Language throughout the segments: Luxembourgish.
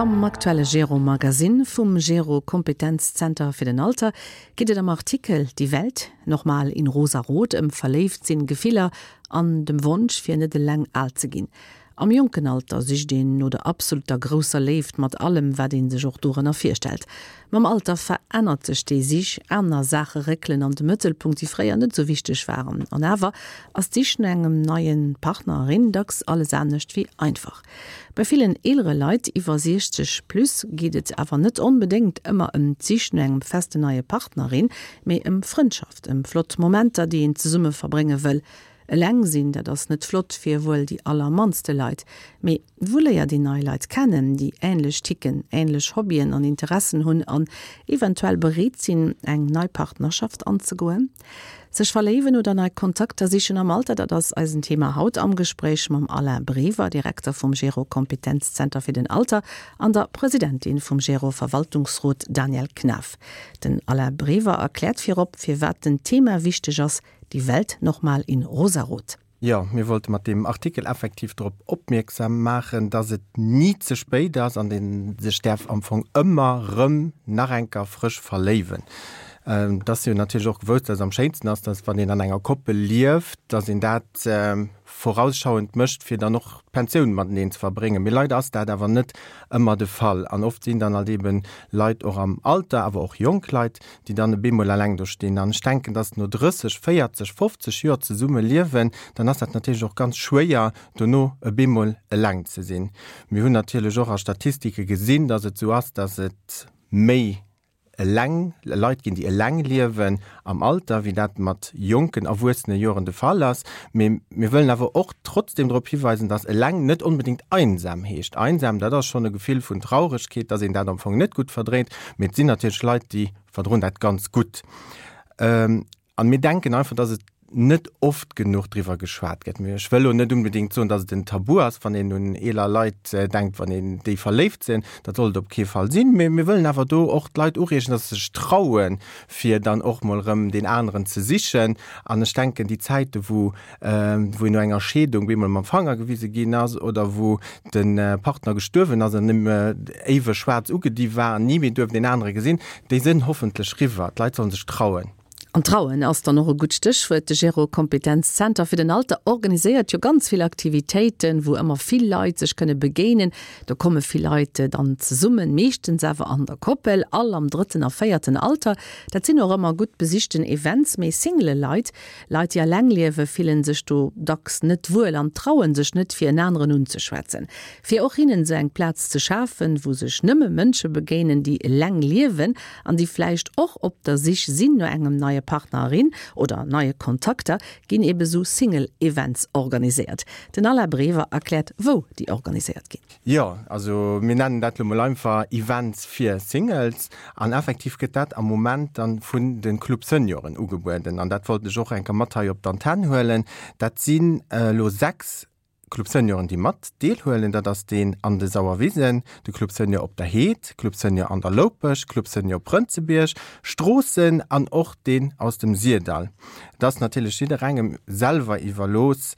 Am aktuelle Gero Magazine vum Gero Kompetenzzenter fir den Alter geet et am Artikel Die Welt nochmal in rosarot ëm Verléift-sinn, Gefiller an dem Wonsch fir net eleng al ze ginn. Am jonken Alter sicht een no der absoluter grousser Léift mat allem, wat ee sech och dorënner virstellt. Mam Alter verännert sech déi Sich, aner Saache réckelen an de Mëttelpunkt, déi fréier net esou wichteg waren. An awer ass d'Sich no engem neie Partner, erin dacks alles anescht wéi einfach. Bei villen eelere Leit iwwer 60 plus geet et awer net onbedéngt ëmmer ëm d'Sich no engem festen neie Partner, erin, mee ëm Frëndschaft, ëm flott Momenter, déi een zesumme verbrénge wëll. Eleng sinn, dat ass net flott fir wuel déi allermannste Leit. Mee wou léiert een nei Leit kennen, déi änlech ticken, änlech Hobbyen an Interessen hunn an eventuell bereet sinn, eng nei Partnerschaft anzegoen? Sech verléiwen oder nei Kontakter sichen am Alter, dat ass eisen Thema haut am Gespréich mam Alain Brever, Direkter vum Gero Kompetenzzenter fir den Alter an der Presidentin vum Gero Verwaltungsrot Danièle Knaff. Den Alain Brever erkläert virop, firwat den Thema wichteg ass, Die Welt nochmal in rosarot. Jo, mir wollte mat deem Artikel effektiv drop opmierksam maachen, dass et ni ze spéit ass an ee sech däerf am Fong ëmmer rëm nach eng Kéier frësch verléiwen. Et ass jo natierlech och gewousst, dass et am schéinsten ass, dass wann een an enger Koppel lieft, dass een dat vorausschauend mécht, fir dann och d'Pensioun mateneen ze verbréngen. Mee leider ass dat awer net ëmmer de Fall an oft sinn dann halt eeben Leit och am Alter, awer och jonk Leit, déi dann e bemol eleng do stinn. An ech denken, dass no 30, 40, 50 Joer zesumme liewen, dann ass dat natierlech och ganz schwéier, dono e bemol eleng ze sinn. Mir hunn natierlech och a Statistike gesinn, dass et esou ass, dass et méi eleng Leit ginn, déi eleng liewen am Alter, wéi dat mat jonken erwuessene Joren de Fall ass. Mee mir wëllen awer och trotzdem drop hiweisen, dass eleng net onbedéngt einsam heescht. Einsam, dat ass schonn e Gefill vun Trauregkeet, dass een dat am Fong net gutt verdréint. Mee et sinn natierlech Leit, déi verdroen dat ganz gutt. An mir denken einfach, dass et net oft genuch driwwer geschwat gëtt. Mee ech wëll elo net unbedéngt soen, dass et en Tabu ass, wann een un eeler Leit denkt, wann een déi verléift sinn. Dat soll et op kee Fall sinn. Mee mir wëllen awer do och d'Leit ureegen, dass se sech trauen, fir dann och mol erëm deen aneren ze sichen. An ech denken, déi Zäite wou wou een no enger Scheedung bemol mam Fanger gewise ginn ass oder wou de Partner gestuerwen ass an nëmme éiweg schwaarz ugedi war an ni méi duerft een anere gesinn, déi sënn hoffentlech riwwer. D'Leit sollen sech trauen. An trauen ass dann och e gutt Stéchwuert. De Gero Kompetenz Zenter fir den Alter organiséiert jo ganz vill Aktivitéiten, wou ëmmer vill Leit sech kënne begéinen. Do komme vill Leit dann zesummen, meeschtens awer an der Koppel, all am drëtten a véierten Alter. Dat sinn och ëmmer gutt besichten Events. Mee Single Leit Leit, déi eleng liewen, fillen sech do dacks net wuel an trauen sech net, fir en aneren unzeschwätzen. Fir och hinnen esou eng Plaz ze schafen, wou sech nëmme Mënsche begéinen, déi eleng liewen an déi vläicht och op der Sich sinn no engem neie Partner, erin oder neie Kontakter, ginn ebe sou Single-Events organiséiert. Den Alain Brever erkläert, wou déi organiséiert ginn. Jo, also mir nennen dat lo mol einfach Events fir Singles. An effektiv gëtt dat am Moment dann vun de Club Senioren ugebueden. An dat wollt ech och eng Kéier mat hei op d'Antenn huelen. Dat sinn elo 6 Club Senioren, déi mat deelhuelen. Dat ass deen an de Sauerwisen, de Club Senior op der Heed, Club Senior an der Loupech, Club Senior Prënzebierg, Stroossen an och deen aus dem Syrdall. Et ass natierlech jidderengem selwer iwwerlooss,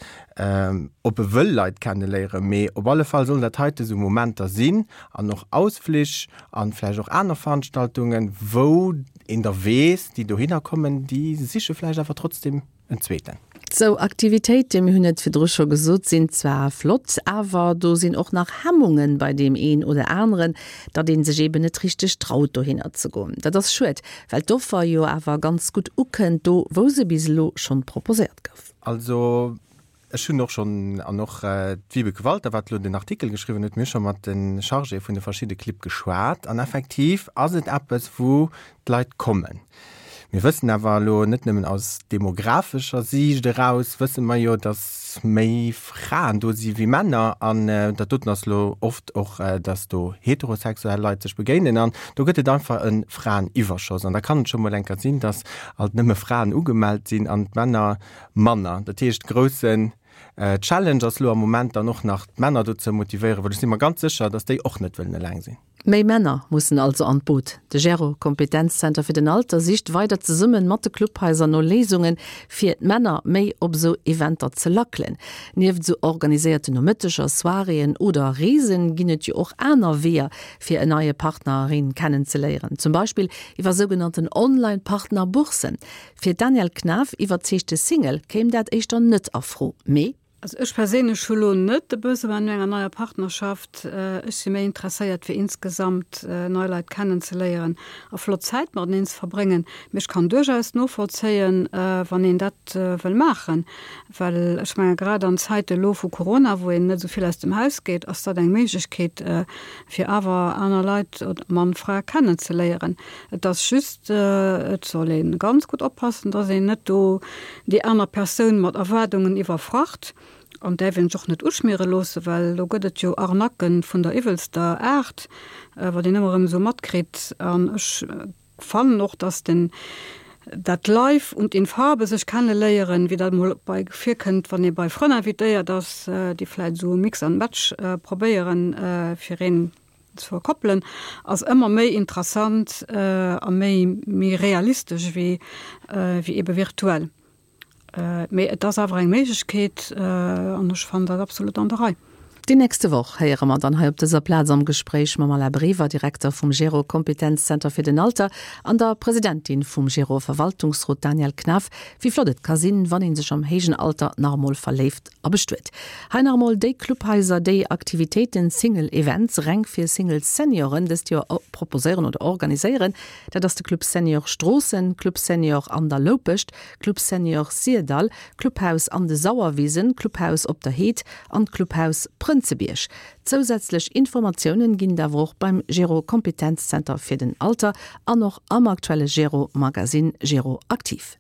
ob e wëll Leit kenneléieren, mee op alle Fall sollen dat heite sou Momenter sinn an och Ausflich an vläicht och aner Veranstaltungen, wou een da weess, déi dohinner kommen, déi siche vläicht awer trotzdem en zweeten. Sou Aktivitéiten, mir hunn et virdru scho gesot, sinn zwar flott, awer do sinn och nach Hemmungen bei deem een oder aneren, datt ee sech eeben net richteg traut dohinner ze goen. Dat ass schued, well d'Offer jo awer ganz gutt ukënnt, do wou se bis elo schonn proposéiert gouf. Also ech hunn och schonn, an och d'Vibeke Walter, wat elo den Artikel geschriwwen huet, mir hu scho mat de Chargéë vun de verschidde Clibb geschwat an effektiv ass et eppes, wou d'Leit kommen. Mir wëssen awer elo net nëmmen aus demographescher Siicht eraus, wësse mer jo, datt méi Fraen do si wéi Männer an dat doten ass elo oft och, datt do heterosexuell Leit sech begéinen an do gëtt et einfach e Fraeniwwerschoss an da kann et scho mol eng Kéier sinn, datt alt nëmme Fraen ugemellt sinn an d'Männer manner. Dat heescht, groussen. Challenge ass lo am Moment dann och nach d'Männer dozou motivéieren, well ech si mer ganz sécher, dass déi och net wëllen eleng sinn. Méi Männer mussen also an d'Boot. De Gero Kompetenzzenter fir den Alter sicht weider zesumme mat de Clubhaiser no Léisungen, fir d'Männer méi op esou Eventer ze lackelen. Nieft esou organiséierten Nomëtteger, Soiréeën oder Reesen ginn et jo och aner Weeër, fir en neie Partner, erin kennenzeléieren. Zum Beispill iwwer sougenannten Online-Partner-Boursen. Fir d'Danièle Knaff, iwwerzeegte Single, kéim dat éischter net a Fro, mee. Also ech perséinlech hu lo net de Besoin no enger neier Partnerschaft. Ech si méi interesséiert fir insgesamt nei Leit kennen ze léieren a flott Zäit mateneen ze verbréngen. Mee ech kann duerchaus novollzéien, wann een dat wëll maachen, well ech menge grad an Zäite lo vu Corona, wou een net esou vill aus dem Haus geet, ass dat eng Méiglechkeet fir awer aner Leit, Mann, Fra, kennen ze léieren. Et ass just, et soll ee ganz gutt oppassen, dass een net do déi aner Persoun mat Erwaardungen iwwerfracht an däerf een sech och net uschmiere loossen, well do gëtt et jo Arnaquë vun der iwwelster Aart, wat een ëmmer erëm esou matkritt. An ech fannen och, dass den, dat live und in Farbe sech kenneléieren, wéi dat emol bei virkënnt, wann ee bei Frënn invitéiert ass, déi vläicht esou e Mix and Match probéieren, fir een ze verkoppelen, ass ëmmer méi interessant a méi méi realistesch ewéi ewéi ebe virtuell. Mee et ass awer eng Méiglechkeet an ech fannen dat absolut an der Rei. Déi nächste Woch héiere mer dann hei op dëser Plaz am Gespréich mam Alain Brever, Direkter vum Gero Kompetenzzenter fir den Alter, an der Presidentin vum Gero Verwaltungsrot Danièle Knaff, wéi flott et ka sinn, wann ee sech am héijen Alter nach emol verléift a bestuet. Hei nach emol déi Clubhaiser, déi Aktivitéiten, Single Events, reng fir Single Senioren dëst Joer proposéieren oder organiséieren. Dat ass de Club Senior Stroossen, Club Senior An der Loupescht, Club Senior Syrdall, Clubhaus An de Sauerwisen, Clubhaus Op der Heed an d'Clubhaus Prënzebierg. Zousätzlech Informatiounen ginn et awer och beim Gero Kompetenzzenter fir den Alter an och am aktuelle Gero Magazine Gero Aktiv.